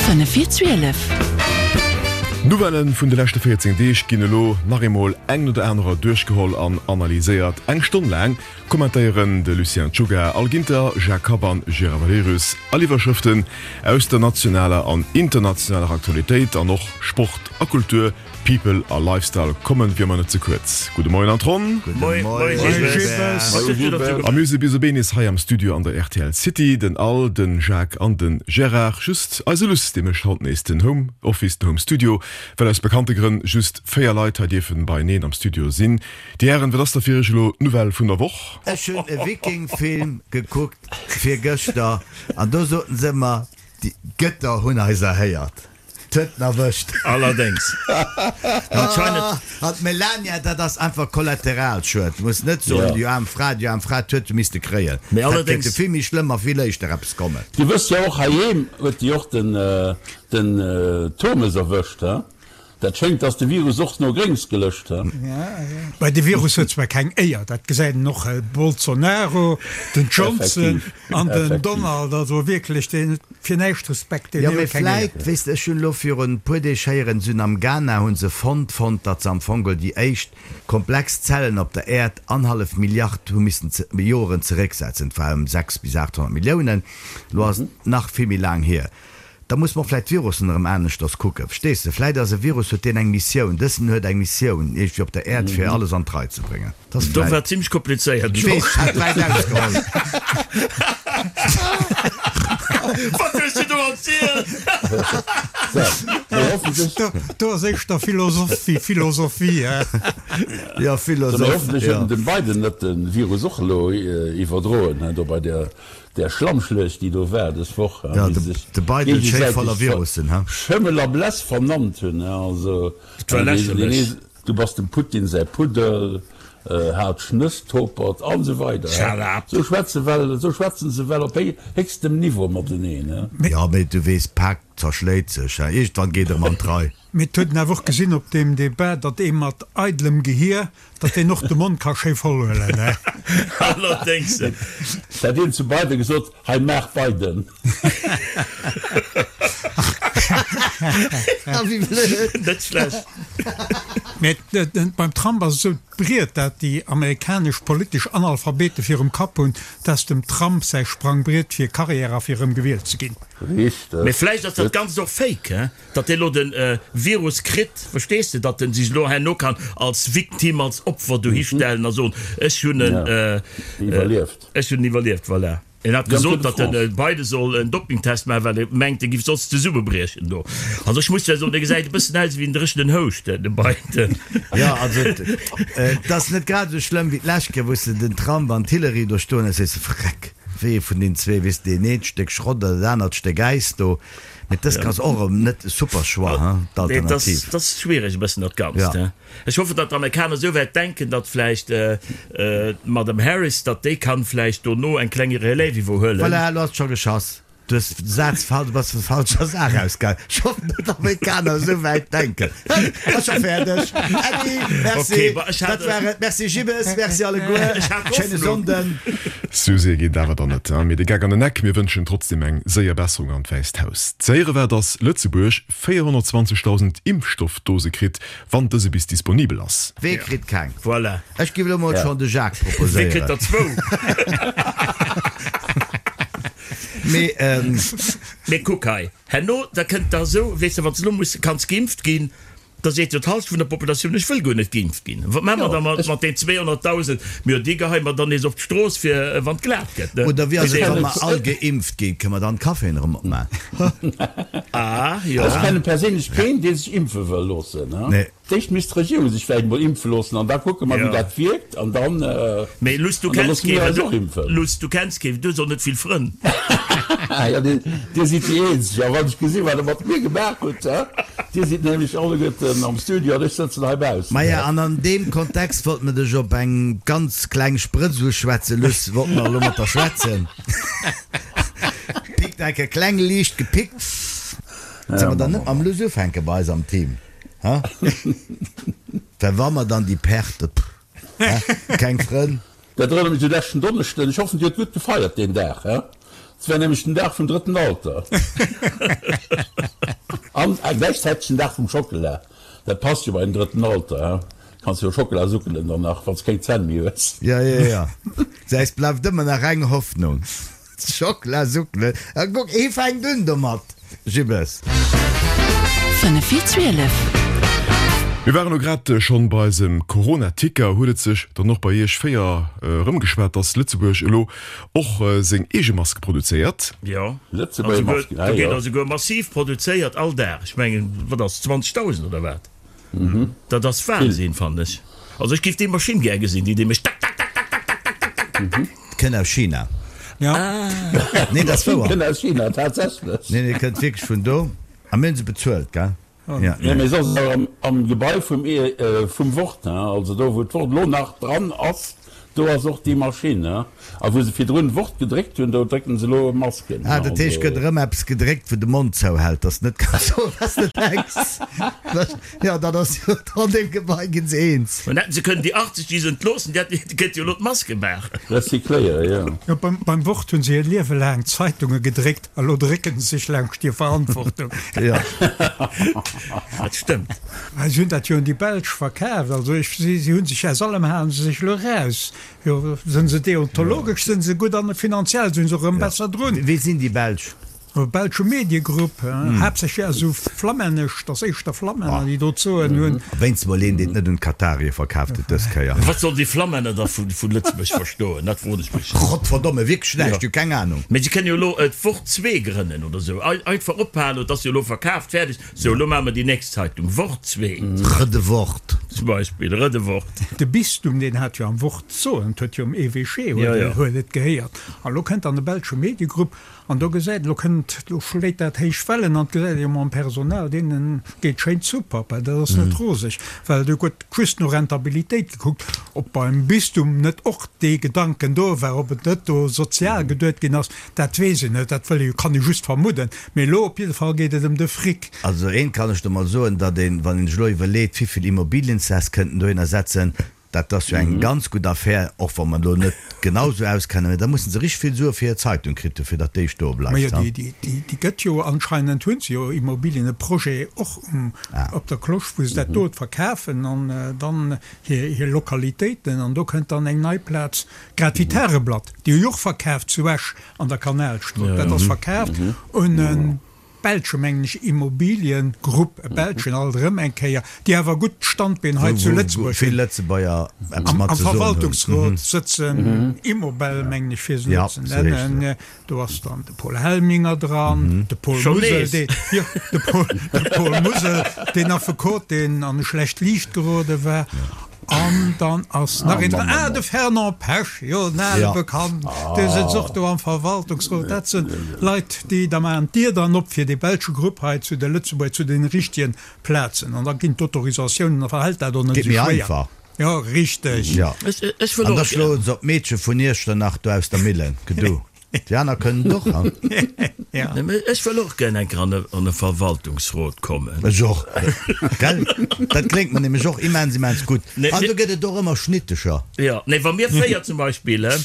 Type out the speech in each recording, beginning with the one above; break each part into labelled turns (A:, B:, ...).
A: 5 vir 12.
B: D'Nouvellen vun de leschte 14 Deeg ginn elo nach eemol eng no der anerer duerchgeholl an analyséiert. Eng Stonn laang kommentéieren de Lucien Czuga, Al Ginter, Jacques Kapp an Gérard Valerius all Iwwerschrëften aus der nationaler an internationaler Aktualitéit an och Sport a Kultur. People a Lifestyle kommen wéi ëmmer net ze kuerz. Gudde Moien an d'Ronn. A mir si bis op een nees hei am Studio an der rtl City. Den Al, den Jacques an den Gérard. Just eise Luss, dee mécht haut nees den Home Office, den Home Studio, well aus bekannte Grënn just 4 Leit hei dierfen beieneen am Studio sinn. Dir Hären, wat ass da fir iech elo d'Nouvelle vun der Woch?
C: Ech hunn e Viking-Film gekuckt virgëschter an do soten se ëmmer, déi Gëtter hunn eis erhéiert. 't huet en erwëscht.
D: Allerdéngs.
C: Anscheinend. An d'Melania, dat ass einfach Kollateralschued. Du muss net soen, déi aarm Fra, déi aarm Fra, 't huet se misste kréien.
D: Mee
C: Dat
D: allerdéngs.
C: kéinte vill méi schlëmm a vill éischter eppes kommen.
E: Dir wësst jo och, heiheem huet déi och den den Turmes erwëscht, he? Dat schéngt, dass de Virus och no Gréngs gelëscht, he?
F: Bei de Virus huet zwar keng Éier, dat gesäit een och, Bolsonaro, den Johnson
E: Effektiv,
F: an den
E: effektiv.
F: Donald, also wierklech, deen huet fir näischt Respekt, deen
C: Jo, mee
F: huet keng Éier.
C: vläit, weess de, ech hunn elo virun e puer Deeg héieren, se hunn am Ghana hu se fonnt, fonnt, datt se am Fong geholl déi éischt komplex Zellen op der Äerd annerhallef Milliard hu missen Joren zerécksetzen, et war ëm 6 bis 800 Milliounen, elo ass et nach vill méi laang hier. Da muss mer och vläit d'Virussen erëm aneschters kucken, verstees de? Vläit ass e Virus, huet deen eng Missioun, dësen huet eng Missioun iergendwéi op der Äerd fir alles an d'Rei ze bréngen. Dat ass
D: Do
C: vläit.
D: war zimlech komplizéiert
C: Ech weess, ech hat wäit ausgeholl.
D: Wat hues du do erzielt?
E: Mee hoffentlech.
F: Do, do ass éischter Philosoph wéi Philosophie, hä?
C: Jo,
E: Mee
C: Philosoph,
E: hoffentlech huet
C: jo.
E: den Biden net de Virus och elo iwwerdroen, hä, do bei der Där Schlammschluecht, déi do war dës Woch,
C: Ja,
E: wéi
C: de,
E: se sech
C: de Biden schéi
E: géigesäiteg
C: voller Virussen, he?
E: Schëmmel a Bless vernannt hunn, also,
D: Dat war lächerlech.
E: Du bass dem Putin säi Puddel, haart Schnësstopert an esou weider.
D: Shut up!
E: Esou schwätze well, esou schwätzen se well op héchstem Niveau mateneen, he?
C: Ja, mee du weess, d'Pak zerschléit sech, he? Iergendwann geet erëm an d'Rei.
F: Mee et huet een awer och gesinn op deem Debat, datt ee mat eidelem Gehier, datt deen och de Mond ka schéi voll huelen, he.
D: Allerdéngs.
E: Dat een zu Biden gesot, hei maach Biden.
C: Wéi blöd.
D: Net schlecht.
F: Mee beim Trump ass et esou, d'Briet, dat déi amerikanesch politesch Analphabete virum Kapp hunn, dat ass dem Trump säi Sprangbriet fir Karriär a fir erëm gewielt ze ginn.
E: Richteg.
D: Mee vläicht ass dat Ganzt och Fake, he? Datt dee lo de Virus kritt, verstees de, datt en sech elo herno kann als Victime, als Opfer dohi stellen a soen, ech hunn en
E: iwwerlieft.
D: Ech hunn en iwwerlieft, voilà. En hat gesot, datt de Biden soll en Dopingtest maachen, well e mengt, e giff soss zesummebriechen do. Also ech muss zwar soen, dee gesäit e bëssen aus ewéi en dréchenen Houscht, de Biden.
C: Jo, also et ass net grad esou schlëmm wéi d'lescht Kéier, wou s de den Trump an d'Hillary do stoen hues, sees de, Vreck, wéi ee vun deenen zwee, weess de, deen eent Stéck Schrott oder dat anert Stéck Äis do. Mee dëst ass och erëm net e super Choix, hein, d'Alternativ.
D: Dat ass schwiereg e bëssen dat Ganzt, hein. Ech hoffen, datt d'Amerikaner esou wäit denken, datt vläicht d'Madame Harris, datt déi kann vläicht dono eng kleng Relève iwwerhuelen.
C: Voilà, elo ass et scho geschass. Du hues de Saz fal, du bass vun der falscher Saach ausgaangen. Ech hoffen, datt d'Amerikaner esou wäit denken. Ass scho fäerdeg. Äddi, merci. Dat war et. Merci Gibbes, merci alleguer. Schéine Sonnden.
B: Sou séier geet et awer dann net, mee de Geck an den Eck. Mir wënschen trotzdem eng séier Besserung an d'Wäisst Haus. Ze héiere war, dass Lëtzebuerg 420.000 Impfstoffdose kritt, wann dëse bis disponibel ass.
C: Wee kritt keng?
D: Voilà.
C: Ech giff elo mol schon de Jacques
D: Wee kritt
C: proposéieren.
D: der zwou?
C: Mee ähm.
D: Mee kuck hei, herno, da kënnt der esou, weess de, wann s de elo muss, kanns geimpft ginn, Da seet jo d'Halschent vun der Populatioun, ech wëll guer net geimpft ginn. Wat maache mer da mat den 200.000? Mir jo, déi geheie mer dann nees op d'Strooss, fir wann et glat gëtt, ne?
C: Oder wéi ass et, wa mer all geimpft ginn, kënne mer dann d'Caféen erëm opmaachen?
D: Ah, jo.
E: Ech kenne perséinlech keen, dee sech impfe wëll loossen.
C: Nee.
E: D'éischt misst d'Regierung sech vläicht emol impfe loossen an da kucke mer, wéi dat wierkt an dann,
D: Mee Luss, du
E: an da
D: kenns
E: loosse mir
D: keen,
E: eis och impfen.
D: Luss, du kenns keen, du hues och net vill Frënn.
E: Jo, dir sidd déi Eenzeg. A wann ech gesinn, wat Der mat mir gemaach hutt, hä? Dir sidd nämlech alleguerten am Studio an ech sëtzen hei baussen.
C: Maja, an an deem Kontext wollt mer dech op eng ganz kleng Sprëtz uschwätzen, Luss, wollt mer elo mat der schwätzen. Pickt enke kleng liicht gepickt. Solle mer dann net mam Luss ufänke bei eis am Team, hä? Well wa mer dann déi Perte, pff, hä? Keng Frënn.
E: Dat erënnert mech u leschten Donneschden. Ech hoffen, Dir hutt gutt gefeiert deen Dag, hä? Et war nämlech den Dag vum drëtten Alter. An gläichzäiteg den Dag vum Schockela. Dat passt jo bei den drëtten Alter, he? Kanns jo Schockela suckelen dann nach, wann s keng Zänn méi hues.
C: Jo, jo, jo. Säis bleift ëmmer nach eng Hoffnung. Schockela suckelen. A kuck, hie fänkt un domat, Jibbes.
B: 5 vir 12. Mir waren elo grad schonn bei eisem Corona-Ticker. Huet et sech dann och bei Iech 4 erëmgeschwat, dass Lëtzebuerg elo och seng eege Maske produzéiert?
D: Jo, Lëtzebuerger Masken, ah jo. Do ginn der esouguer massiv produzéiert all Dag. Ech mengen, wat ass, 20.000 oder wat? Dat ass Wahnsinn, fannen ech. Also ech géif déi Maschinn gär gesinn, déi déi mécht
C: tak-tak-tak-tak-tak-tak-tak-tak-tak. Kënnt aus China. Nee, dat ass wouer.
E: Kënnt aus China, tatsächlech.
C: Nee, nee, kënnt wierklech vun do. A mir hunn se bezuelt, gell?
E: Ja. Nee, mee soss awer am Gebai vum vum Wort, hein, also do wou d'Wort elo nach dran ass, do ass och déi Maschinn, hein. A wou se virdrun Wort gedréckt hunn, do drécken se elo Masken,
C: Ah, dat heescht, gëtt erëm eppes gedréckt, wou de Mond zouhält, dass net kanns soen, wat s de denks. Jo, dat ass jo an deem Gebai ginn se eens.
D: An hätten se kënnen déi 80, déi se entloossen, déi hätten, déi kënnte jo elo d'Maske maachen.
E: Recycléiere, jo.
F: Jo, beim, beim Wort hunn se hir Liewe laang Zeitunge gedréckt, a lo drécken se sech laanscht hir Verantwortung.
C: Jo.
D: Dat stëmmt.
F: Si hunn dat jo un déi Belsch verkaaft. Also ech, si, si hu sech aus allem halen se sech elo eraus. Jo, sinn se deontologesch sinn se gutt an finanziell sinn se och erëm besser drun.
C: Wie sinn déi Belsch?
F: E belsche Mediegrupp, haaptsächlech esou flammännesch, dat ass éischter Flammänner, déi do d'Soen hunn.
C: Wéinst mol een, deen et net un d'Katarier verkaaft huet dës Kéier.
D: Wat sollen déi Flammänner da vu Lëtzebuerg verstoen, dat froen ech mech.
C: Gottverdomme, wierklech näischt, hu keng Anung.
D: Mee se kënnen jo elo d'Wort zwee grënnen oder esou. Einfach ophalen, et ass jo elo verkaaft, fäerdeg. Sou, elo maache mer déi nächst Zeitung, Wort zwee.
C: Rëde Wort.
D: Zum Beispill, Rëde Wort.
F: De Bistum, deen hat jo am Wort d'Soen, et huet jo um Evêché huet et gehéiert. An elo kënnt dann e belsche Mediegrupp an do gesäit, elo kënnt, elo schléit dat héich Wellen an et gesäit ee jo mam Personal, deene geet schéin super, well dat ass net roseg, well do gëtt just no Rentabilitéit gekuckt. Ob beim Bistum net och dee Gedanken do war, ob et net do sozial geduet ginn ass, Dat weess een net, dat wëll ee, kann ee just vermudden. Mee elo op jidde Fall geet et ëm de Fric.
C: Also eent kann ech der mol soen, datt een, wann een sech elo iwwerleet, wivill Immobiliensäss kënnten dohinner setzen, dat ass jo eng ganz gutt Affär, och wa mer elo net genau esou auskennen, mä da mussen se richteg vill Sue fir hir Zeitung kritt hu fir datt déi stoe bleift.
F: Majo, déi, déi gëtt jo anscheinend, hu se jo Immobilien, e Projet och um, op der Cloche, wou se dat dot verkafen an dann hir, hir Lokalitéiten an do kënnt dann eng nei Plaz Grad wéi d'Tageblatt, déi hu jo och verkaaft zu Esch an der Kanalstrooss. Dat ass verkaaft un e belsche, mengen ech, Immobiliengrupp, e belschen alt erëm eng Kéier, déi awer gutt Standbeen hei zu Lëtzebuerg
C: hunn.
F: Am Verwaltungsrot sëtzen Immobel, mengen ech, fir se elo ze nennen. Do ass dann de Paul Helminger dran, de Paul Musel, dee, jo, de Paul, de Paul Musel, deen Affekot, deen an e schlecht Liicht gerode war. An dann ass nach een dran, ah, de Fernand Pesch, jo, en ale Bekannten, dee sëtzt och do am Verwaltungsrot. Dat si Leit, déi da maachen d'Dier dann op fir dee belsche Grupp hei zu de Lëtzebuerger, zu den richtigen Plazen. An da ginn d'Autorisatiounen, da verhält dat och net esou schwéier. Jo, richteg.
C: Jo. Ech wëll och. An da schloen se op d'Meedche vun Iechternach do aus der Millen. Gedu. Déi aner kënnen et och, ha?
D: Ja. Ech wëll och gär eng Kéier an e Verwaltungsrot kommen.
C: Ech och. Gell? Dat kléngt mer nämlech och immens, immens gutt. An do gëtt et och ëmmer Schnittecher.
D: Jo. Nee, wa mir 4 zum Beispill, he?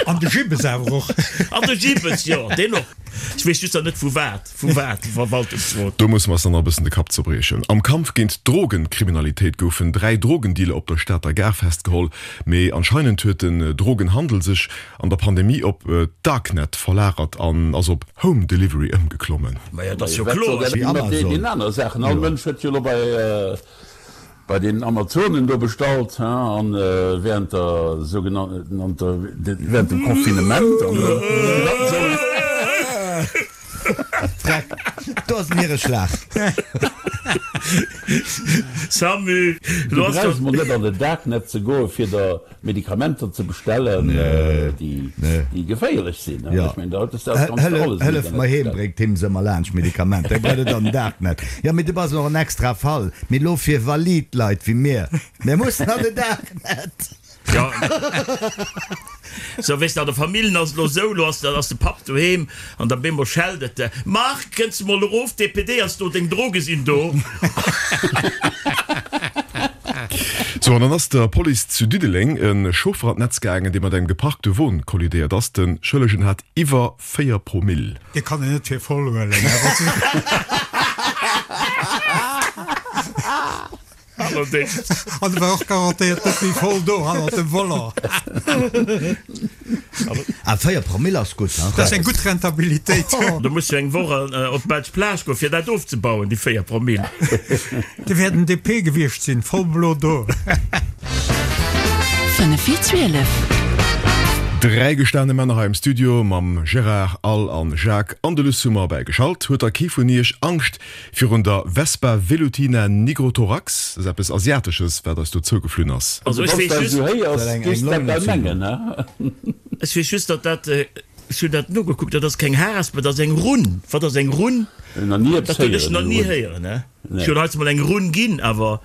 F: An de Gibbes awer och.
D: An de Gibbes, jo, deen och. Ech weess just nach net vu wat. Vu wat? Verwaltungsrot.
B: Do musse mer eis dann nach e bëssen de Kapp zerbriechen. Am Kampf géint d'Drogenkriminalitéit goufen 3 Drogendealer op der Stater Gare festgeholl. Mee anscheinend huet den Drogenhandel sech an der Pandemie op d'Darknet verlagert an ass op Home Delivery ëmgeklommen.
D: Majo, dat ass jo kloer.
E: Wéi Amazon. All Mënsch huet jo elo bei Bei den Amazonen do bestallt, hein, an während der sougenannter, während dem Confinement an
C: Freck, do ass en Niereschlag.
D: Samu,
E: Du brauchs mol net an den Darknet ze goen fir der Medikamenter ze bestellen, déi geféierlech sinn. Ech mengen, da hues de alles
C: ganz alles am Hëllef mer heem, bréngt him se ëmmer laanscht, Medikamenter. Hie brauch net an den Darknet. Jo, mee du bass och en extra Fall. Mee elo fir valid Leit wéi mir, mir mussen an den Darknet.
D: Jo. Sou, weess de, an der Famillen ass et elo esou, elo ass ass de Papp doheem an da bemol schellt et, Marc, kënns de mol erof, d'DPD ass do, deng Droge sinn do.
B: Sou, an dann ass der Police zu Diddeleng e Chauffer an d'Netz gaangen, dee mat engem geparkte Won kollidéiert ass. De Schëllegen hat iwwer 4 Promill.
F: Dee kann een net fir voll huelen.
D: Allerdéngs.
F: An e war och garantéiert net méi voll do hannert dem Volant.
C: Ah, 4 Promille ass gutt,
F: hein? Dat ass eng gutt Rentabilitéit.
D: Do muss du eng Woch op d'belsch Plage goen, fir dat ofzebauen, déi 4 Promille.
F: Dee wäert en DP gewiescht sinn, voll blo do.
B: 5 vir 12. Dräi gestane Männer hei am Studio mam Gérard, Al an Jacques an de Luss hu mer bäigeschalt. Huet da kee vun iech Angscht Virun der Vespa velutina nigrothorax, dat ass eppes Asiatesches, wat eis do zougeflunn ass.
D: Also ech weess just, ech weess just, datt dat, ech hunn dat nogekuckt, dat ass keng Haresp, dat ass eng Runn. Wat ass eng Runn? Dat hunn ech nach ni héieren. Ech hunn heiansdo mol eng Runn ginn, awer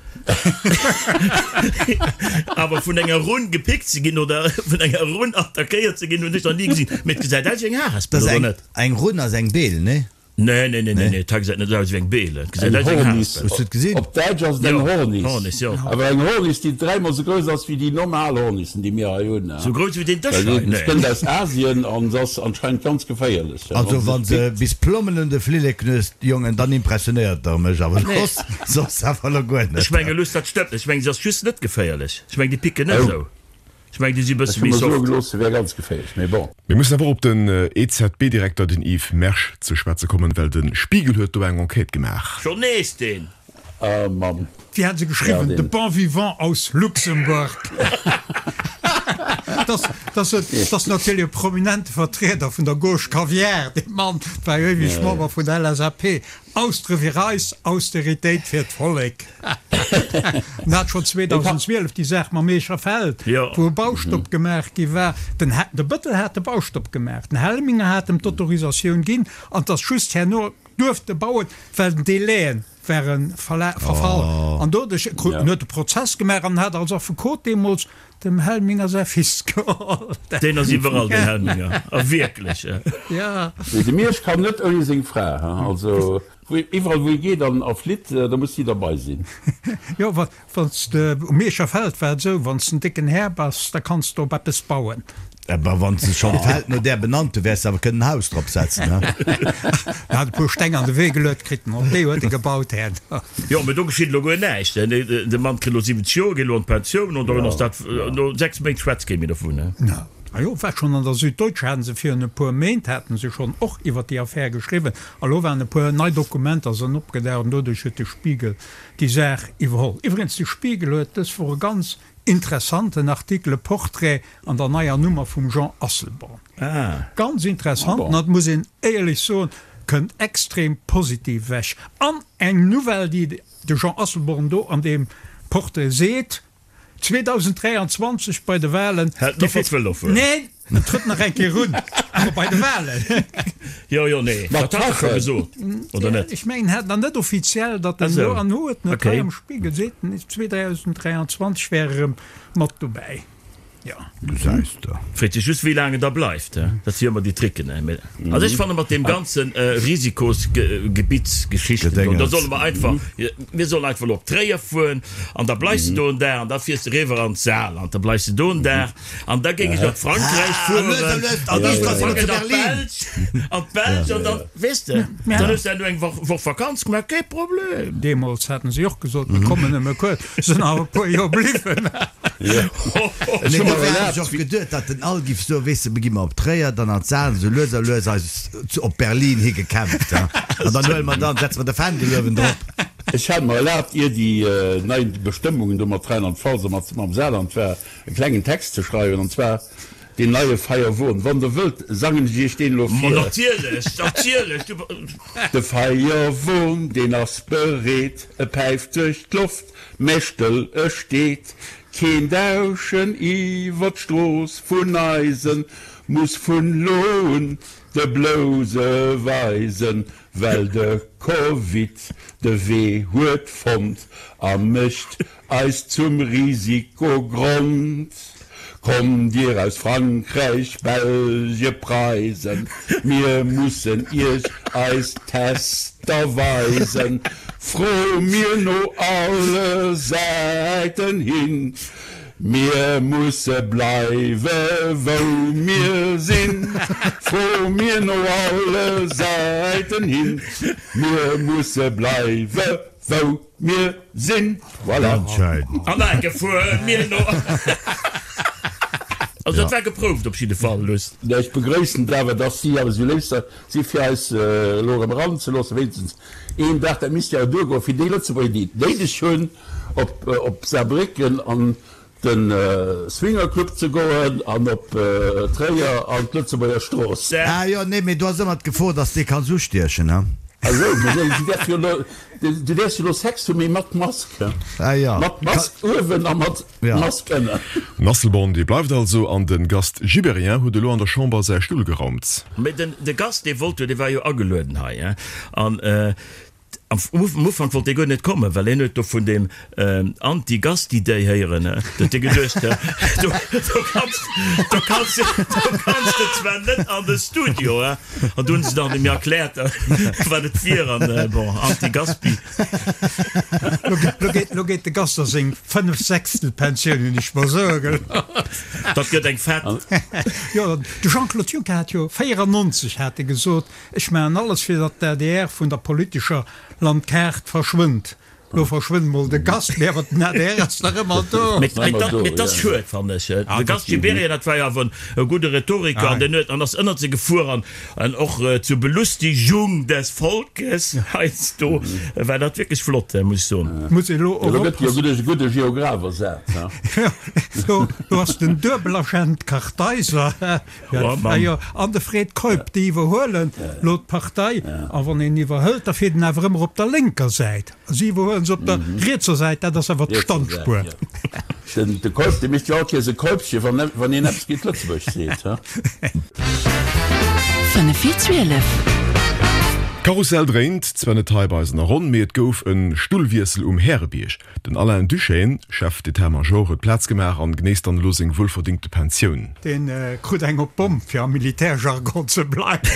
D: awer vun enger Runn gepickt ze ginn oder vun enger Runn attackéiert ze ginn, hunn ech nach ni gesinn. Mee et gesäit aus wéi eng Harespel, oder net?
C: Eng Runn ass eng Beel, nee?
D: Nee, nee, nee, nee, nee, dat gesäit net aus wéi eng Beel. Et gesäit aus wéi eng
E: Hornis. Hues du et gesinn? Op Däitsch ass et eng Hornis. Hornis, jo. Awer eng Hornis, déi dräimol sou grouss ass wéi déi normal Hornissen, déi mir hei hunn.
D: Sou grouss wéi deen Dësch hei?
E: Nee. Se kënnt aus Asien an se ass anscheinend ganz geféierlech.
C: Also wann se bis Plommen un de Flillek knuesst, Jongen, dann impressionéiert der mech, awer soss, soss awer lo guer net.
D: Ech menge Luss, dat stëmmt net. Ech meng, se ass just net geféierlech. Ech meng, déi picken net esou. Ech mengen, déi si bësse méi soft.
E: Gelooss, se wär ganz geféierlech, mee bon.
B: Mir mussen awer och op den EZB-Direkter, den Yves Mersch, ze schwätze kommen, well de Spiegel huet do eng Enquête gemaach.
D: Schonn nees deen!
E: Ah Mann.
F: Wéi hat se geschriwwen? De bon vivant aus Luxembourg. Dat ass natierlech e prominente Vertrieder vun der Gauche Caviar, dee Mann war jo éiweg Member vun der LSAP. Austre fir eis, Austeritéit fir d'Vollek. En hat schonn 2012 déi Saach mam Eecher Feld, wou e Baustopp gemaach gi war. Den de Bëttel hat de Baustopp gemaach, den Helminger hat em d'Autorisatioun ginn an 't ass just herno duerfte bauen, well den Délaië ware verfall. An doduerch krut en huet de Prozess gemaach an hat als Affekot deemools Dem Helminger säi Fils geholl.
D: Deen ass iwwerall, den Helminger. A wierklech.
E: Ja. Nee, de Miersch kann net ouni seng Fra, he. Also, iwwerall wou e geet an a flitt, da muss si derbei sinn.
F: Jo, wa, wann s de, um Mierscher Feld war et esou, wann s de en décken Här bass, da kanns de op eppes bauen.
C: Awer wann s de schonn d'Feld no där benannt hu, wäers de awer kënnen en Haus drop setzen, he?
F: En hat e puer Steng an de Wee geluet kritt, an op déi huet e gebaut herno.
D: Jo, mee do geschitt elo guer näischt. De Mann kritt elo 70 Joer, geet elo an d'Pensioun, an dann ass dat, no 6 Méint schwätzt kee méi dovun.
F: A jo, war schonn an der Süddeutsche haten se virun e puer Méint haten se schonn och iwwer déi Affär geschriwwen. A lo waren e puer nei Dokumenter sënn opgedaucht an doduerch huet de Spiegel déi Saach iwwerholl. Iwwregens, de Spiegel huet dës Woch e ganz Interessanten Artikel, e Portrait an der neier Nummer vum Jean Asselborn. Ganz interessant, an et muss een éierlech soen, kënnt extrem positiv ewech. An eng Nouvelle, déi de Jean Asselborn do an deem Portrait seet, 2023 bei de Wahlen,
D: Hält net mat Vëlo fueren.
F: Neen, en trëtt nach eng Kéier un, awer bei de Wahlen.
D: Jo, jo, nee, dat hat e scho gesot, oder net?
F: Ech mengen, hat nach net offiziell, datt en elo, an huet en et hei am Spiegel, seet en, 2023 wär e rëm mat dobäi. Jo.
C: Gesäis de.
D: Freet sech just, wéi laang en da bleift, he? Dat si jo ëmmer déi Tricken, he? Mee also ech fanne mat deem ganze Risikosgebittssgeschichten do, da solle mer einfach, mir sollen einfach elo op Tréier fueren an da bleifs de do en Dag an da fiers de eriwwer an d'Saarland, da bleifs de do en Dag An da géing ech op Frankräich fueren, an d'Belsch, an d'Belsch, an dann, weess de, dann hues de herno eng Woch Vakanz gemaach, kee Problem.
F: Deemools haten si och gesot, mir kommen nëmme kuerz, sinn awer e puer Joer bliwwen.
C: Ech hu mer ech och geduet, datt den Al giff soen, weess de, mir gi mer op Tréier, dann an d'Saarn, esou lues a lues eis op Berlin hi gekämpft, an dann huele mer dann, setze mer de Fändel uewen drop.
E: Ech hat mer erlaabt, ier déi nei Bestëmmungen do mat Rheinland-Pfalz a mam Saarland war, e klengen Text ze schreiwen, an zwar deen neie Feierwon. Wann der wëllt, sangen ech iech deen elo
D: Ma vir. natierlech, natierlech, du.
E: De Feierwon, deen ass bereet, e päift duerch d'Loft, mä stëll e steet. Keen Dauschen iwwer d'Strooss vun eisen muss vun lo un de Blouse weisen, well de Covid de Wee huet fonnt a mécht Eis zum Risikogrond. Kommt dir aus Frankräich, Belge, Preisen, mir mussen iech eis Tester weisen. Fro mir no alle Säiten hin, mir musse bleiwe wou mir sinn. Fro mir no alle Säiten hin, mir musse bleiwe wou mir sinn. Voilà.
C: Ganz schein.
D: An enke fuer mir no. Also dat war geprouft op jidde Fall, Luss.
E: Ech begrëissen et awer, dass si awer esou léif si fir eis elo erëm eranzeloossen, wéinstens een Dag. Dat misst jo awer duergoen fir déi Lëtzebuerger, déi et néideg hunn, op op Saarbrécken an de Swingerclub ze goen an op Tréier an d'Lëtzebuerger Strooss.
C: Ah jo, nee, mee do ass ëmmer d'Gefor, dass de kanns ustiechen, he?
E: Ah sou, mee du däerfs jo elo, du däerfs jo elo Sex hunn, mee mat Mask, he?
C: Ah jo.
E: Mat Mask uewen a mat Mask ënnen.
B: Den Asselborn, dee bleift also, an de Gast Gibéryen huet elo an der Chamber säi Stull geraumt.
D: Mee den, de Gast, dee wollt jo, dee war jo agelueden hei, he, an Am Ufank wollt dee guer net kommen, well hien huet do vun deem Anti-Gasti-Day héieren. Do huet hie geduecht, do kanns, do kanns, do kanns de zwar net an de Studio, he. An du hunn se dann em erkläert, wat et wier an bon, Anti-Gaspi.
F: Lo geet, lo geet de Gast a seng Fënnefsechstelpensioun, hunn ech mer soe gelooss.
D: Dat gëtt eng fett.
F: Jo, de Jean-Claude Juncker hat jo 94 hat e gesot, Ech maachen alles fir datt d'ADR vun der politescher Landkaart verschwënnt. Lo verschwënnt mol de Gast, mee awer den adr ass nach ëmmer do.
D: Mee et ass schued, fannen ech. De Gast Gibéryen, dat war jo awer e gudde Rhetoriker an deen huet an ass ënnert se gefuer an an och zur Belustigung des Volkes heiansdo war dat wierklech flott, muss ech soen.
F: Muss ee lo och
E: Lo gëtt jo e gudde Geograph ersat,
F: he? Jo, lo ass den Duebelagent Kartheiser. Jo, an de Fred Keup, déi iwwerhuelen lo d'Partei. A wann een iwwerhëlt, da fiert en awer ëmmer op der lénker Säit. Si iwwerhuelen se op der rietser Säit, dat ass awer d'Standspuer.
E: De Keup, dee mécht jo all Kéiers e Keupche, wann een eppes géint Lëtzebuerg seet.
B: 5 vir 12. D'Karussell dréint zwar net hei bei eis an der Ronn, mee et gouf e Stullwiessel um Härebierg. Den Alain Duschène, Chef d'état-major, huet Plaz gemaach an genéisst dann elo seng wuelverdingte Pensioun.
F: Deen krut eng op d'Bomm, fir am Militärjargon ze bleiwen.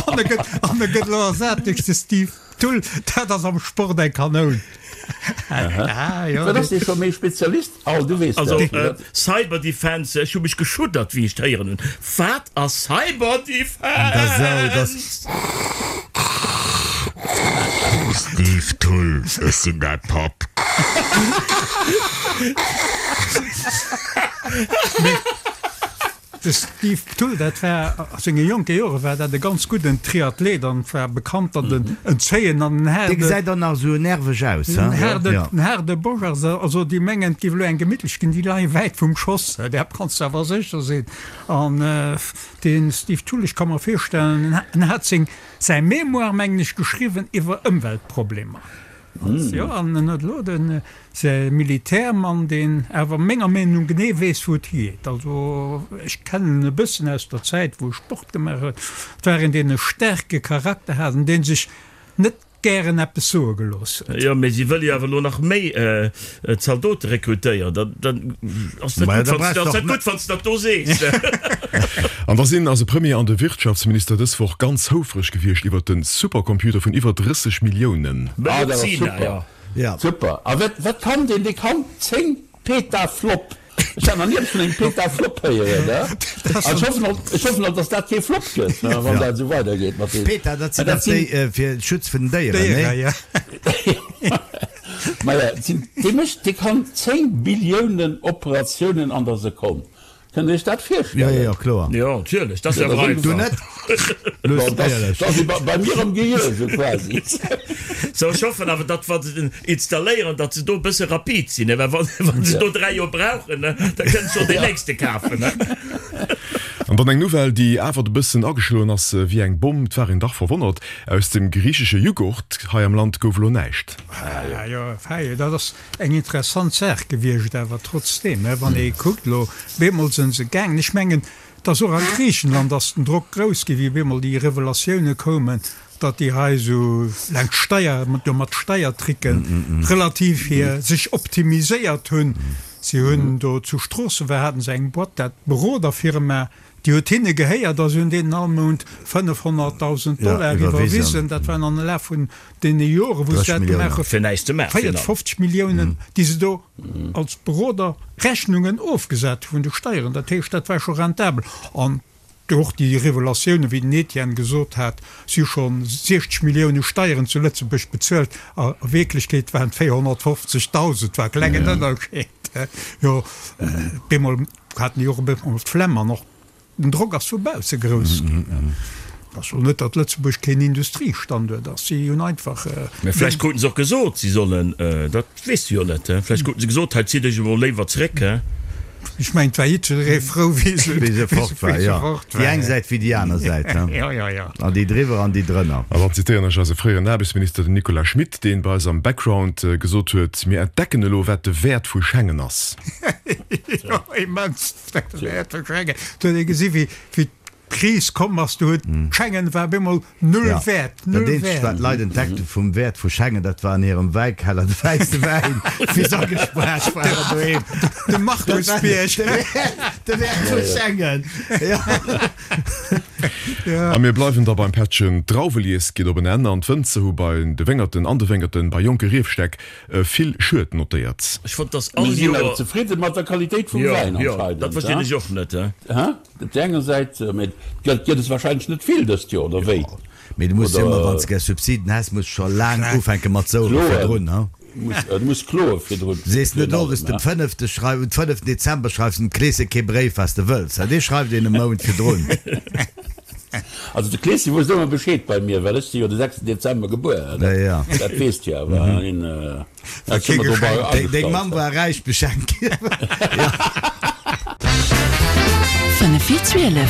F: An e gëtt, an e gëtt elo ersat duerch de Steve Thull. Dat ass am Sport eng Kanoun.
E: Ah, jo. Wat ass dee scho méi Spezialist? Al, du weess
D: dat. Also, Cyberdefense, ech hu mech geschuddert, wéi ech d'héieren hunn. Wat ass Cyberdefense?
C: Steve Thull, ech sinn däi Papp.
F: De Steve Thull, dat war a senge jonke Jore war dat e ganz gudden Triathlet an war bekannt, datt en en zéien an en haarde.
C: Dee gesäit och nach esou nerveg aus,
F: he? En haarde Bosch ass. Also déi mengen, et géif elo eng gemittlech ginn, déi leie wäit vum Schoss, där kanns de awer sécher sinn. An de Steve Thull, ech ka mer virstellen, en hat seng, säi Mémoire, mengen ech, geschriwwen iwwer Ëmweltproblemer. Jo, an en huet elo de säi Militärmann, deen awer menger Meenung no genee weess, wou et higeet. Also ech kennen en e bëssen aus der Zäit, wou e Sport gemaach huet. Et war een, deen e staarke Charakter hat an dee sech net gären eppes soe gelooss huet.
D: Jo, mee si wëlle jo awer elo nach méi Zaldote rekrutéieren. Da da ass net gutt, wann s ass net gutt, wann s de dat do sees.
B: An da sinn eise Premier an de Wirtschaftsminister dës Woch ganz houfreg gewiescht iwwert de Supercomputer vun iwwer 30 Milliounen.
E: Ah, dat ass super. Super. A wat, wat kann deen? Dee kann 10 Petaflop. Ech hat nach ni eppes vun engem Petaflop héieren, ne? An ech hoffen och, ech hoffen och, dass dat kee Flop gëtt, ne, wann dat esou weidergeet mat deem.
C: Peta, dat sinn dach déi fir Schutz vun den Déieren,
F: ne?
E: Ja. Maja, dee mécht, dee kann 10 Billiounen Operatiounen an der Sekonn. Kënnt Dir Iech dat virstellen?
C: Jo, jo, kloer.
D: Jo, natierlech, dat ass jo awer
C: einfach. Du net?
E: Luss, éierlech. Dat ass bei mir am Gehir esou quasi.
D: Sou, ech hoffen awer, datt wa se den installéieren, datt se do e bësse rapid sinn, well wa se do 3 Joer brauchen, da kënnt schonn deen nächste kafen.
B: An dann eng Nouvelle, déi awer e bëssen ageschloen ass wéi eng Bomm. Et war een dach verwonnert, Aus dem griichesche Jughurt hei am Land gouf elo näischt.
F: Jo, fei, dat ass Eng interessant Saach gewiescht, awer trotzdeem, wann ee kuckt elo, bemol sënn se gaangen. Ech mengen, dass och a Griichenland ass den Drock grouss gi wéi bemol déi Revelatioune koumen, datt déi hei esou laang Steier, jo mat Steiertricken relativ hir sech optimiséiert hunn. Si hunn do zu Stroossen, war haten se eng Boîte, dat Beroderfirma, déi huet hinne gehéiert a si hunn deenen all Mount 500.000 Dollar iwwerwisen. Dat waren an de Laf vun deene Joren, wou se dat gemaach hunn, 54 Milliounen, déi se do als Beroder Rechnungen ofgesat hu vun de Steieren. Dat heescht, dat war scho rentabel. An Och déi Revelatiounen, wéi den Etienne gesot hat, si hu scho 60 Millioune Steieren zu Lëtzebuerg bezuelt, a Wierklechkeet waren et 450.000, war e klengen Ënnerscheed. Jo, bemol haten déi och e bëssen d'Flemm an och den Drock ass vu bausse grouss ginn. Ech soen net, datt Lëtzebuerg keen Industriestanduert ass, si hunn einfach.
D: Mä vläicht kruten se och gesot, si sollen, dat weess de jo net, vläicht kruten se gesot, hei zitt Iech emol léiwer zréck.
F: Ech mengen, et war jiddweree frou, wéi se
C: Wéi se fort war, jo. Déi eng Säit wéi déi aner Säit, he.
F: Jo, jo, jo.
C: An déi driwwer an déi drënner.
B: An dann zitéieren ech eise fréieren Aarbechtsminister, den Nicolas Schmit, deen bei eis am Background gesot huet, Mir entdecken elo, wat de Wäert vu Schengen ass.
F: Jo, immens, de Wäert vu Schengen. Do huet ee gesi wéi d'Kris komm ass, do huet Schengen war op eemol null wäert,
C: Dat
F: null
C: eenzegt wat
F: wäert.
C: d'Leit entdeckt hu vum Wäert vu Schengen, dat war an hirem Wäikeller de wäisse Wäin, wéi se agespaart waren doheem.
F: De Markusbierg.
C: De Wäert vu Schengen, jo.
B: A mir bleiwen da beim Pättchen, D'Drauwelies geet op en Enn an d'Wënzer hu bei de Wéngerten an de Wéngerten bei jonke Riefstäck vill Schued notéiert.
D: Ech fonnt dass all
E: Mir sinn awer
D: Joer.
E: zefridde mat der Qualitéit vum
D: Jo,
E: Wäin
D: jo,
E: anscheinend,
D: dat verstinn ech och net.
E: Hä? Op där enger Säit, mee et gëtt es wahrscheinlech net vill dëst Joer, oder wéi?
C: Mee du muss jo ëmmer, wann s de gär Subsiden häss, muss scho laang ufänke mat souere virdrun, ha?
E: Du muss kloe virdrun.
C: Sees net owes dem fënnefte schreif, um fënneften Dezember schreifs dem Kleeschen kee Bréif, wat s de wëlls, ha? Dee schreift een e Mount virdrun.
E: Also de Kleeschen wousst ëmmer Bescheed bei mir, well ech si jo de sechsten Dezember gebuer, dat weess de jo awer.
C: Deng Mamm war räich beschenkt ginn.
A: Fënnef vir 12.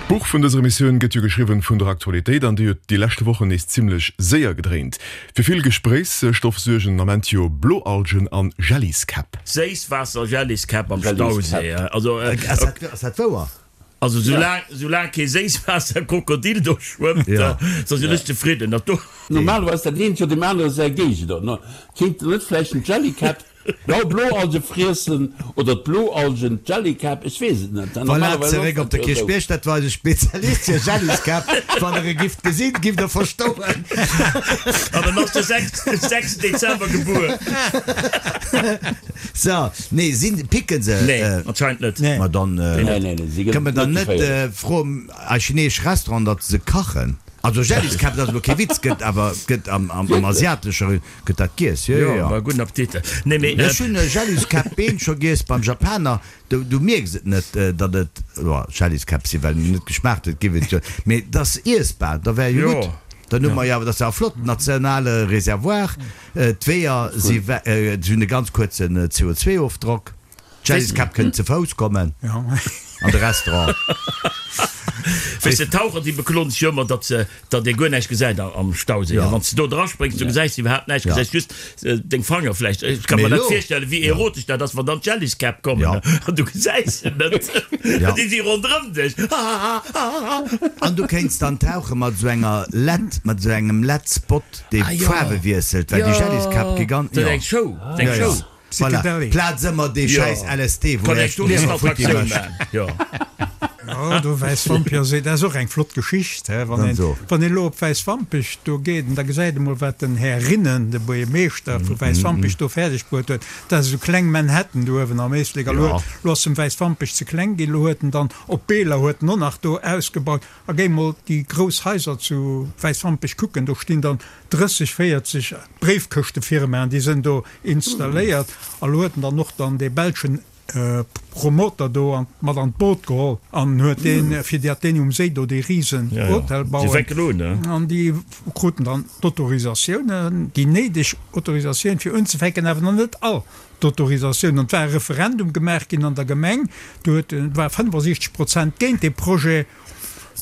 B: D'Buch vun dëser Emissioun gëtt jo geschriwwen vun der Aktualitéit an déi huet déi leschte Wochen nees zimmlech séier gedréint. Fir vill Gespréichsstoff suergen den Ament jo Bloalgen an Jelliskäpp.
D: Séisswaasser-Jelliskäpp am Stauséi. Also.
C: Ass dat wouer?
D: Also soulaang soulaang kee Séisswaasserkrokodil do schwëmmt, da sinn ech zefridden. Dat do.
E: Normalerweis dat eent jo deem anere säi Géigender. Kéint net vläicht den Jellycat d'blau Bloalge friessen oder d'Bloalgen d'Jellycap? Ech weess et net.
C: Voilà, zeréck op de Kierchbierg, dat war eise Spezialist fir Jelliskäpp. Wann der e gifft gesinn, gifft der verstoen.
D: An en ass de 6 Dezember gebuer.
C: So, nee, sinn, picken se?
D: Nee, anscheinend net.
C: Ma dann
E: Nee, nee, nee, si
C: kënne mer
E: gëtt
C: dann
E: net
C: net
E: geféierlech.
C: froen a chineesch Restaurant, datt se kachen. Also Jelliskäpp, dat ass elo kee Witz, gëtt awer, gëtt am, am, am
E: Wierklech?
C: asiatesche gëtt dat giess, jo, jo,
D: Jo,
C: jo.
D: ma gudden Appetit. Nee, mee.
C: Ech hunn Jelliskäpp-Been scho giess beim Japaner, du, du mierks et net, datt et, jo, Jelliskäpp sinn, well net geschmaacht huet, giff et jo, mee et ass iessbar, da wär jo
D: Jo.
C: gutt. Dann hu mer jo awer, dat ass jo e flotten nationale Reservoir. D'Weeër si hunn e ganz kuerzen CO2-Ofdrock. D'Jelliskäpp kënnen ze Fouss kommen an de Restaurant.
D: Weess de, d'Taucher déi bekloen sech jo ëmmer, datt se, datt ee guer näischt gesäit am Stauséi. A wann s de do draspréngs, du gesäis iwwerhaapt näischt, gesäis just deng Fanger vläicht. Ech ka mer net virstellen, wéi erotesch dat ass, wann dann d'Jelliskäpp kommen an du gesäis se net, déi si ronderëm dech.
C: An du kéints dann tauche mat esou enger Led, mat esou engem Led-Spot. Dee Faarwe wiesselt, well déi Jelliskäpp gi ganz.
D: Dat ass eng Show, dat ass eng Show.
C: Voilà, Plaz ëmmer dee schäiss LSD, wou Iech d'Liewer futti mécht.
F: Jo, do Wäiswampech, dat ass och eng flott Geschicht, he. Wann een, wann een elo op Wäiswampech do geet, da gesäit ee mol, wat den Här Rinnen, de Buergermeeschter vu Wäiswampech, do fäerdeg bruet huet. Dat ass esou kleng Manhattan do uewen am Éislek. A lo, lo ass em Wäiswampech ze kleng ginn, lo huet en dann op Beeler huet en och nach do ausgebaut. A géi mol déi grouss Haiser zu Wäiswampech kucken, do stinn dann 30, 40 Bréifkëschtefirmaen, déi sënn do installéiert. A lo huet en dann och dann dee belschen Promoter do an mat an d'Boot geholl an huet deen, fir datt deen um Séi do dee risen Hotel bauen. An déi kruten dann d'Autorisatiounen, déi néideg Autorisatioun fir unzefänken, awer nach net all d'Autorisatioun. An et war e Referendum gemaach ginn an der Gemeng, do huet, war 65 Prozent géint dee Projet.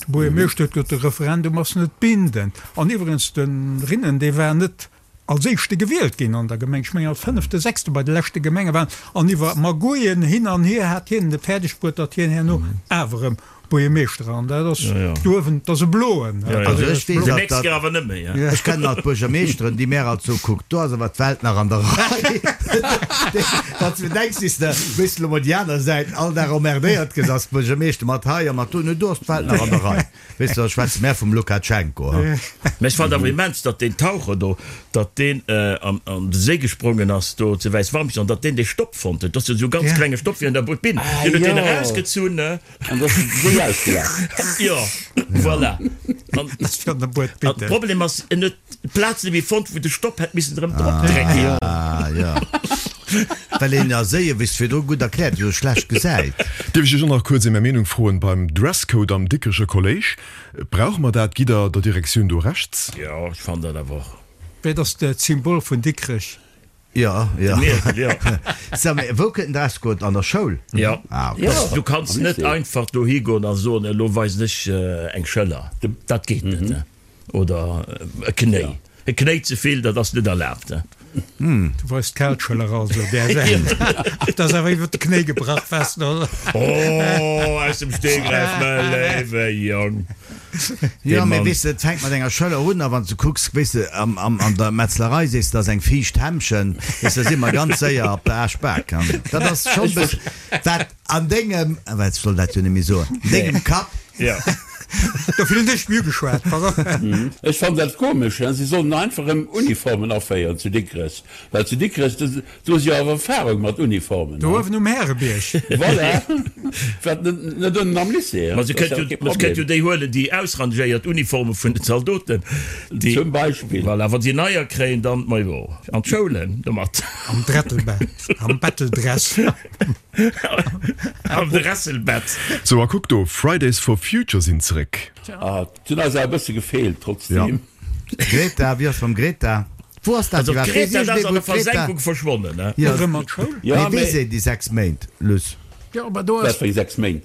F: De Buergermeeschter huet gesot, de Referendum ass net bindend. An iwwregens, de Rinnen, dee war net als éischte gewielt ginn an der Gemeng, ech mengen als fënnefte, sechste bei de leschte Gemengewahlen. An iwwer Magouillen hin an hier hat hien et fäerdeg bruet, datt hien herno awer erëm. Buergermeeschter an dat ass do uewen, dat ass e bloen.
C: Also ech weess
D: alt, datt, awer net méi.
C: Ech kennen alt Buergermeeschteren, déi mär alt soe, kuck, do ass awer d'Welt nach an der Rei. Wann s de denks, wéi s de, wéi s de elo mol déi aner Säit all Dag emmerdéiert gëss als Buergermeeschter mat hei a mat do, no do ass d'Welt nach an der Rei. Weess de, da schwätze mär vum Lukatschenko, ha.
D: Mä ech fand awer immens, datt deen Taucher do, datt deen an de Séi gesprongen ass do zu Wäiswampich an datt deen dee Stopp fonnt huet. Dat ass jo esou e ganz klenge Stopp wéi an der Bobinn. Deen huet deen erausgezunn, ne?
E: An da ass de Séi ausgelaf.
D: Jo, voilà. An de Problem ass, en huet d'Plaz net méi fonnt, wou de Stopp hätt missen erëm drop drécken.
C: Ah, jo. Well een a Séie, wéi s de virdru gutt erkläert hues, schlecht gesäit.
B: Dierf ech Iech och nach kuerz ém Är Meenung froen beim Dresscode am Dikrecher Kolléisch? Brauche mer dat? Gitt Der der Direktioun do Rechts?
D: Jo, ech fannen dat awer och.
F: Wéi, dat ass d'Symbol vun Dikrech.
C: Jo, jo.
D: De Mierkel, jo.
C: So, mee wou kënnt den Dresscode? An der Schoul?
D: Jo.
C: Ah, ok.
D: Du kanns net einfach dohi goen a soen, elo weisen ech eng Schëller. Dat geet net. Oder e Knéi. E Knéi ze vill, dat ass net erlaabt.
F: Du weist d'Kaalschëller also där Säit. Dat ass awer iwwer de Knéi gebrach, wess de, oder?
D: Oh, aus dem Stegreif, mä léiwe Jong.
C: Jo, mee weess de, et fänkt mat enger Schëller un, a wann s de kucks, weess de, an der Metzlerei sees de, dat ass eng fiicht Hämmchen, weess de, da si mer ganz séier op der Aaschbak. Dat ass schonn e bëssen, wat An dengem, awer ech soll dat jo net méi soen, dengem Kapp.
D: Jo.
F: Dofir hunn ech méi ugeschwat, pardon.
E: Ech fannen dat komesch, si sollen einfach erëm Uniformen aféieren zu Dikrech, well zu Dikrech, do si jo awer Erfahrung mat Uniformen.
F: Do uewen um Härebierg.
E: Voilà, wat net ënnen am Lycée.
D: Ma se kënnt jo, ma se kënnt jo déi huelen, déi ausrangéiert Uniforme vun den Zaldoten, déi.
E: Zum Beispill.
D: Voilà, wa si neier kréien, dann, majo, an d'Schoulen domat.
F: Am Drettelbett, am Betteldress.
D: Am Dresselbett.
B: Sou a kuck do, Fridays for Future sinn zeréck.
E: Ah, d'hunn eis awer e bësse gefeelt trotzdem.
C: Greta, wéi ass mam Greta? Wou ass dat
D: Also
C: iwwerhaapt?
D: d'Greta,
C: Weess
D: dat ass
C: iergendee
D: an
C: wou
D: der
C: d'Greta.
D: Versenkung verschwonnen, ne?
C: Jo,
F: Erëm an d'Schoul?
E: Ja,
C: mee
E: mee.
C: weess een déi 6 Méint, Luss?
F: Jo, aber do ass.
E: Wat fir eng 6 Méint?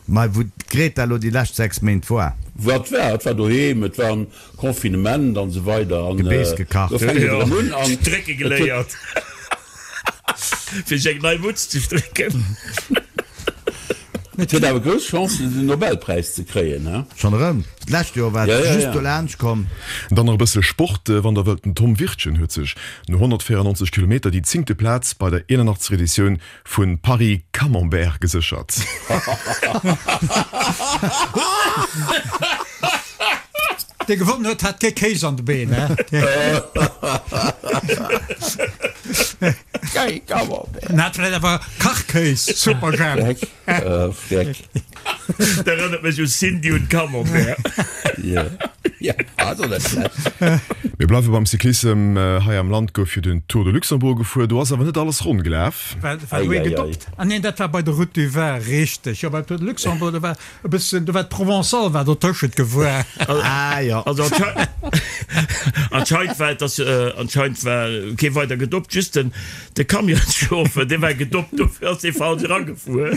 C: Mei wou d'Greta elo déi lescht 6 Méint war.
E: Wat war? Et war doheem, et war am Confinement an esou weider an
C: Gebeess gekacht.
E: do fänkt et erëm un an
D: Strécke
E: et huet.
D: geléiert fir sech eng nei Mutz ze strécken.
E: Et huet awer grouss Chancen den Nobelpräis ze kréien, he?
C: Schonn erëm? D'lescht Joer war et just do laanscht komm.
B: Dann nach e bësse Sport, wann der wëllt. Den Tom Wirtgen huet sech no 194 Kilometer déi zéngte Plaz bei der 81. Editioun Vu Paris Camembert geséchert.
F: Dee gewonnen huet, hat kee Kéis an de Been, he? En hat vläicht awer Kachkéis, Superjhemp.
E: Freck.
D: Dat erënnert mech u Cindy und Camembert.
B: Mir bleiwe beim Cyclissem. Hei am Land gouf jo den Tour de Luxembourg gefuer. Do ass awer net alles ronn gelaf.
F: War do ee gedoppt? Ah neen, dat war bei der Route du Vin, richteg. Jo, beim Tour de Luxembourg, do war e bëssen, do war d'Provençale war dotëschent gefuer.
C: Ah jo.
D: Also anscheinend war et ass, anscheinend war kee weider gedoppt, just den de Camionschauffer, dee war gedoppt, dofir ass dee falsch eragefuer.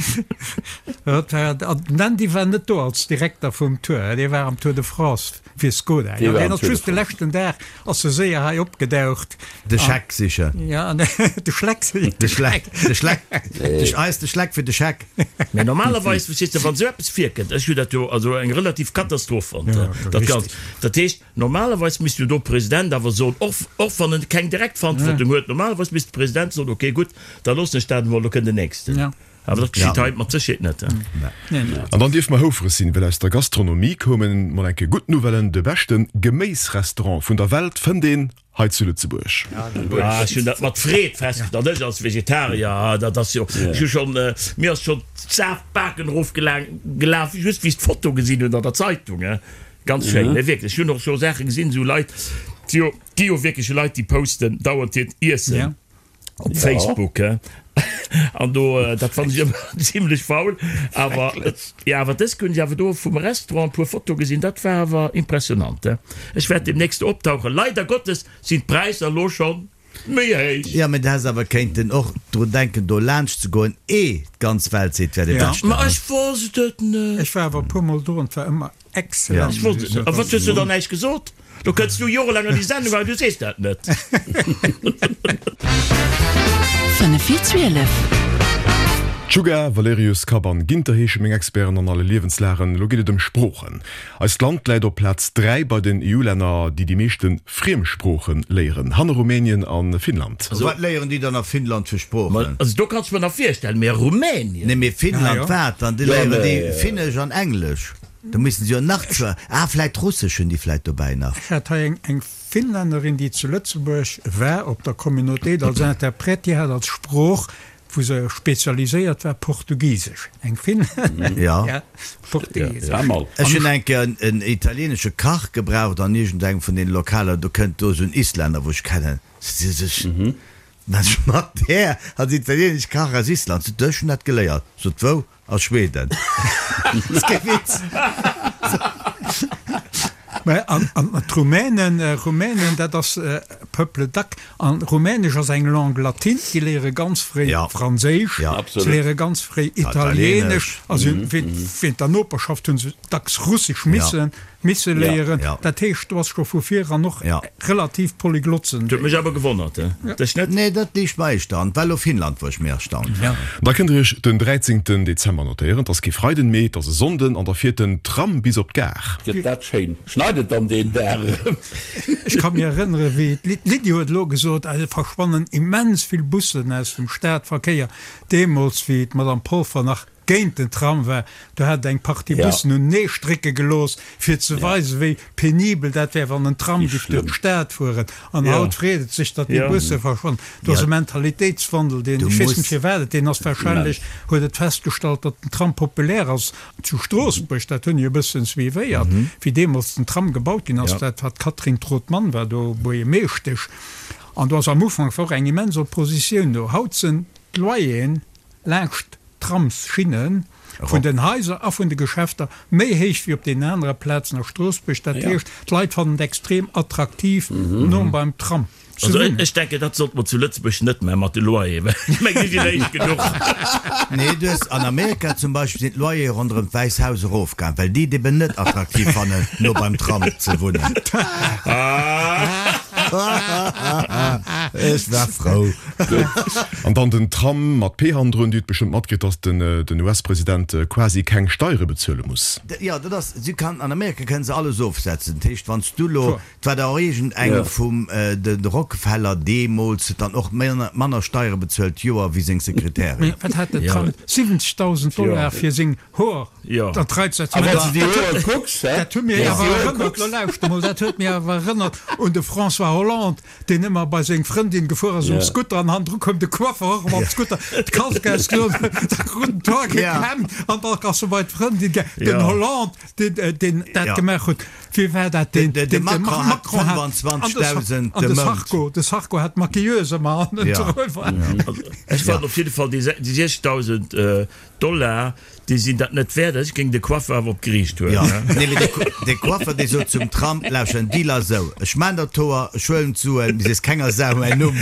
F: Den Andy war net do als Direkter vum Tour, dee war am Tour de France fir Skoda. Jo, deen ass just de leschten Dag ass e séier hei opgedaucht.
C: De Scheck sichen.
F: Ja, de Schleck sichen.
C: De Schleck, de Schleck, eis de Schleck fir de Scheck.
D: Mä normalerweis, verstees de, wann esou eppes virkënnt, ech hu dat jo also eng relativ Katastroph fonnt, dat Ganzt, dat heescht, normalerweis misst jo do President awer soen, och, och wann en keng direkt Verantwortung huet, normalerweis misst de President soen, okay, gutt, da loossen ech dat emol, lo kënnt den nächsten. Awer dat geschitt hei mat Sécherheet net.
B: An dann dierfe mer houfreg sinn, well aus der Gastronomie koumen mol eng Kéier gutt Nouvellen, De beschte Geméisrestaurant vun der Welt fënnt een hei zu Lëtzebuerg.
D: Ah, ech hunn dat mat Freed festgestallt. Ech als Vegetarier, dat ass jo, ech hu schonn, mir ass schonn d'Safbaken erofgelaf, just wéi ech d'Foto gesinn hunn an der Zeitung. Ganz schéin, nee wierklech. Ech hunn och scho Saache gesinn, esou Leit, déi jo, gi jo wierklech Leit, déi posten dauernd hiert Iessen. Op Facebook, he? An do, dat fannen ech ëmmer zimlech faul. Awer, jo, awer dës hunn ech awer do vum Restaurant e puer Fotoe gesinn, dat war awer impressionant, he? Ech wäert demnächst do optauchen. Leider Gottes sinn d'Präisser elo schonn méi héich.
C: Jo, mee du häss awer kéinten och drun denken, do laanscht ze goen, eh d'ganz Welt seet, wär de Beschten.
D: Ma ech wosst et net.
F: Ech war awer e puermol do an et war ëmmer Excellent.
D: Ech wosst et net. A wat hues du dann näischt gesot? Do kënns du jorelaang an déi Sendung an du sees dat net.
A: 11.55.
B: Czuga, Valerius, Kapp an Ginter heesche meng Experten an alle Liewenslagen. Elo geet et ëm Sproochen. Eist Land läit op Plaz 3 bei den EU-Länner, déi déi meeschte Friemsprooche léieren, hanner Rumänien a Finnland.
C: Wat léieren déi dann a Finnland fir Sproochen?
D: Also do kanns de mer nach virstellen, mee Rumänien?
C: Nee, mee Finnland wat dann? Déi léieren déi Finnesch an Englesch. Do missten se jo nach zwar, ah vläit Russesch hunn déi vläit dobäi nach.
F: Ech hat hei eng Finlännerin, déi zu Lëtzebuerg war op der Communauté als Interprète, déi hat als Sprooch, wou se spezialiséiert war, Portugisesch. Eng Finlännerin, ja, Portugisesch.
C: Ech hunn eng Kéier en italienesche Kach gebraucht an iergendengem vun deene Lokaler, do kënnt do esou en Islänner, wou ech kennen, se sech, Mat där als italienesch Kach aus Island, sot, ech hunn dat geléiert, sot, wou? A Schweden. Ass kee Witz.
F: Mä an d'Rumänen, Rumänen, dat ass Peuple d'ac. An Rumänesch ass eng Langue latine. Déi léiere ganz fréi Franséisch, se léiere ganz fréi Italienesch. A se hunn, wéint der Noperschaft hu se dacks Russesch missen. Misse léieren. Dat heescht, do ass scho vu vir eran och relativ polyglott sinn.
D: Huet mech awer gewonnert, dech net?
C: Nee, dat liicht mer éischter an. Well lo Finnland, wou ech méi erstaunt war.
B: Da kënnt der iech den 13 Dezember notéieren. 't ass kee Freiden méi, 't ass e Sonnden an da fiert den Tram bis op d'Gare.
E: Gëtt dat schéin. Schneit et dann deen Dag erëm?
F: Ech ka mir erënnere wéi d'Lydie huet elo gesot, et verschwannen immens vill Bussen aus dem Stadverkéier. Deemools wéi d'Madame Polfer nach géint den Tram war, do hat et eng Partie Bussen unenee strécke gelooss, fir ze weisen, wéi penibel dat wär, wann en Tram giff duerch d'Stad fueren. An haut freet et sech, datt déi Busse verschwannen. Do ass e Mentalitéitswandel, deen, ech weess net firwat et deen ass, wahrscheinlech huet et festgestallt, datt den Tram populär ass zu Stroossbuerg, dat hunn ech e bëssen suivéiert, wéi deemools den Tram gebaut ginn ass, dat war d'Catherine Trautmann war do Buergermeeschtesch, an do ass am Ufank war och eng immens Oppositioun do. Haut sinn d'Loyeren laanscht d'Tramsschinnen vun den Haiser a vun de Geschäfter méi héich wéi op deenen anere Plazen a Stroossbuerg. Dat heescht, d'Leit fannen et extrem attraktiv, no beim Tram ze
D: Also
F: wunnen.
D: ech denken, dat sollte mer zu Lëtzebuerg net maachen mat de Loyeren, well ech mengen, déi sinn héich genuch.
C: Nee, du hues an Amerika zum Beispill sinn d'Loyere ronderëm d'Wäiss Haus erofgaang, well déi et eben net attraktiv fannen, no beim Tram ze wunnen. Ech war frou.
B: An dann den Tram mat P hannendrun. Dir hutt bestëmmt matkritt, dass den US-President quasi keng Steiere bezuele muss.
C: Jo, dat ass, si kann, an Amerika kënnen se alles ofsetzen. Dat heescht, wann s du elo, et war der och iergend eng vum de Rockefeller deemools, huet dann och manner Steiere bezuelt d'Joer wéi seng Sekretärin.
F: Mee wat hat den Trump? 70.000 Dollar fir seng Hoer, dat reizt
E: A wann s de déi Hoer kucks, hä?
F: Dat huet mir awer erënnert, lo lauschter mol, dat huet mir awer erënnert un de François Hollande, deen ëmmer bei seng Frëndin gefuer ass um Scooter an hannendru koum de Coiffer och mam Scooter, d'Kask ausgedoen, da krut en d'Hoer gekämmt an da ass e bei d'Frëndin gaang. Den Hollande, deen, deen dat gemaach huet, wie war dat, deen,
C: De Macron hat 25.000
F: de Mount. Sarko, de Sarko hat d'Maquilleuse ëmmer hannendru.
D: Ech fannen op jidde Fall déi 60.000 Dollar, Déi sinn dat net wäert. Ech géing de Coiffer awer op d'Geriicht huelen.
C: Jo, nee, mee de Coiffer, dee sot zum Tram, Lauschter, den Deal ass esou, ech maan der d'Hoer, ech huelen d'Suen, mee sees kenger Sau mäin Numm.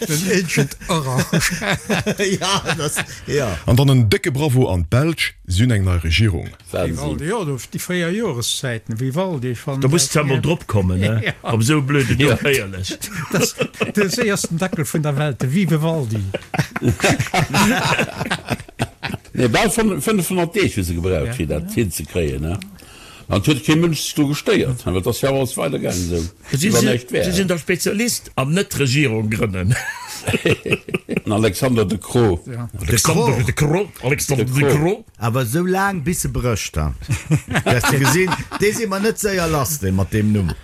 F: Den Agent Orange.
C: Ja, dat ass, jo.
B: An dann en décke Bravo an d'Belsch, si hunn eng nei Regierung.
F: Vivaldi, jo, do déi fréier Joreszäiten, Vivaldi, ech fannen
D: Da muss de emol drop kommen, ne? Op esou e blöden Numm, éierlech.
F: Dat ass de séiersten Dackel vun der Welt, de Vivevaldi.
E: Nee, bal 500 Deeg hu se gebraucht, fir dat hinzekréien, ne? An et huet kee Mënsch sech dru gestéiert, well et ass jo awer alles weidergaangen esou, wéi wann näischt wär.
D: Si sinn der Spezialist am net Regierung grënnen.
E: Den Alexander De Croo.
D: Alexander De Croo, Alexander De Croo.
C: Awer esou laang bis se brécht, ha? Hues de gesinn, dee si mer net séier lass, dee mat deem Numm.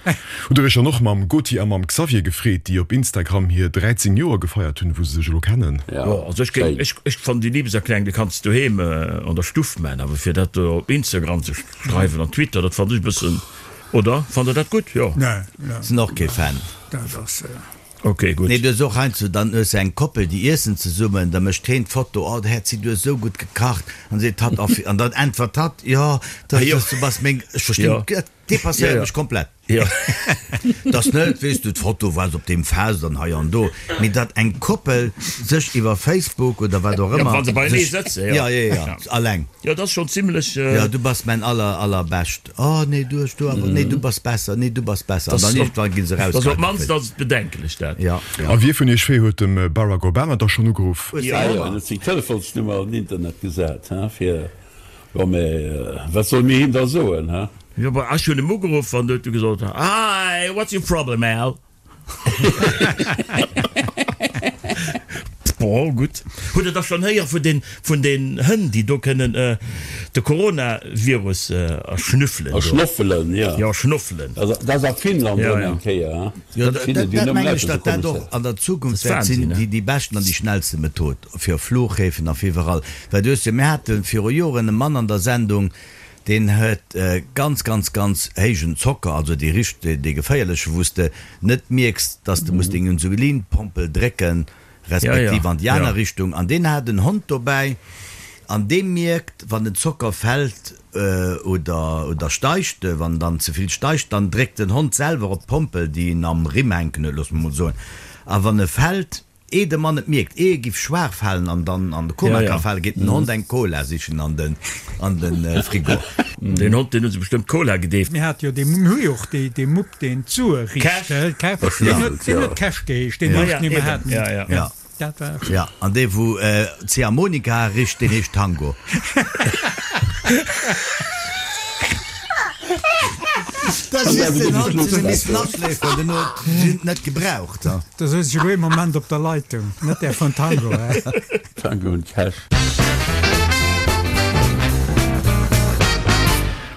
B: Hutt der iech dann och mam Goti a mam Xavier gefreet, déi op Instagram hir 13 Joer gefeiert hunn, wou se sech elo kennen?
D: Jo, also ech géing, ech, ech fannen déi Liebeserklärung, déi kanns de doheem an der Stuff man, awer fir dat do op Instagram ze schreiwen an Twitter, dat fannen ech e bëssen, oder? Fannt der dat gutt? Jo.
F: Nee, nee.
C: Sinn och kee Fan.
F: Dat ass.
D: Ok, gutt.
C: Nee, du hues och heiansdo, dann hues de eng Koppel, déi iessen zesummen, da mécht heen d'Foto, oh Häerzi, du hues esou gutt gekacht, an seet hatt, oh, an dann äntwert hatt, jo, dat ass, du bass meng, ech verstinn, dat. Depasséiert mech komplett.
D: Jo.
C: Dass net, weess du, d'Foto war op deem Fest an hei an do, mee datt eng Koppel sech iwwer Facebook oder wat och ëmmer.
D: Ja, wa se beienee sëtzen,
C: jo. Ja, jo, jo, alleng.
D: Jo, dat ass schonn zimlech.
C: Jo, du bass mäin aller, allerbescht. Oh, nee, du hues do awer, nee, du bass besser, nee, du bass besser. An dann iergendwann gi se
D: eraus. Op d'mannst
C: ass
D: et bedenklech, dat.
C: Ja,
B: ja. A wie vun iech zwee huet dem Barack Obama da schonn ugeruff?
E: Jo, en huet seng Telefonsnummer an den Internet gesat, fir Jo, mä wat solle mir him da soen, he?
D: Jo, bah, ech hunn em ugeruff an du huet e gesot, Hi, what's your problem, Al? Bon, gutt. Hutt Der da schonn héiere vun den, vun den Hënn, déi do kënnen de Coronavirus erschnüffelen
E: do? Erschnoffelen, jo.
D: Jo, erschnoffelen.
E: Dat ass a Finnland erëm eng Kéier, he?
C: Jo, dat mengen ech, datt dat och an der Zukunft wäert sinn, déi beschten an déi schnellste Method. Fir op Flughäfen a fir iwwerall. Well du hues jo, mir hate viru Joren e Mann an der Sendung, deen huet ganz, ganz, ganz héijen Zocker, also dee richt, dee geféierleche, wou s de net mierks, dass de muss deng Insulinpompel drécken, respektiv an déi aner Richtung. An deen hat en Hond dobäi an dee mierkt, wann den Zocker fält oder, oder steigt, wann dann ze vill steigt, dann dréckt den Hond selwer op d'Pompel, déi en am Rimm hänken huet, loosse mer mol soen. A wann e fält, Ehe de Mann et mierkt, ehe e giff schwaach falen an dann an de Koma ka falen, geet den Hond eng Cola sichen an den an den Frigo.
D: Deen Hond, deen hu se bestëmmt Cola gedeeft.
F: Mir hate jo dee, mir hu jo och dee, dee Mupp, deen d'Sue richt,
E: Cash,
F: deen huet, deen huet Cash geheescht, deen Hond, dee mir haten.
C: Ja.
F: Dat war.
C: Ja, an dee wou Ziehharmonika richt, deen heescht Tango. Dat ass just den Hond, deen hu missen aschléiferen, den huet si net gebraucht.
F: Da souz ech elo ee Moment op der Leitung, net där vun Tango, hä?
E: Tango und Cash.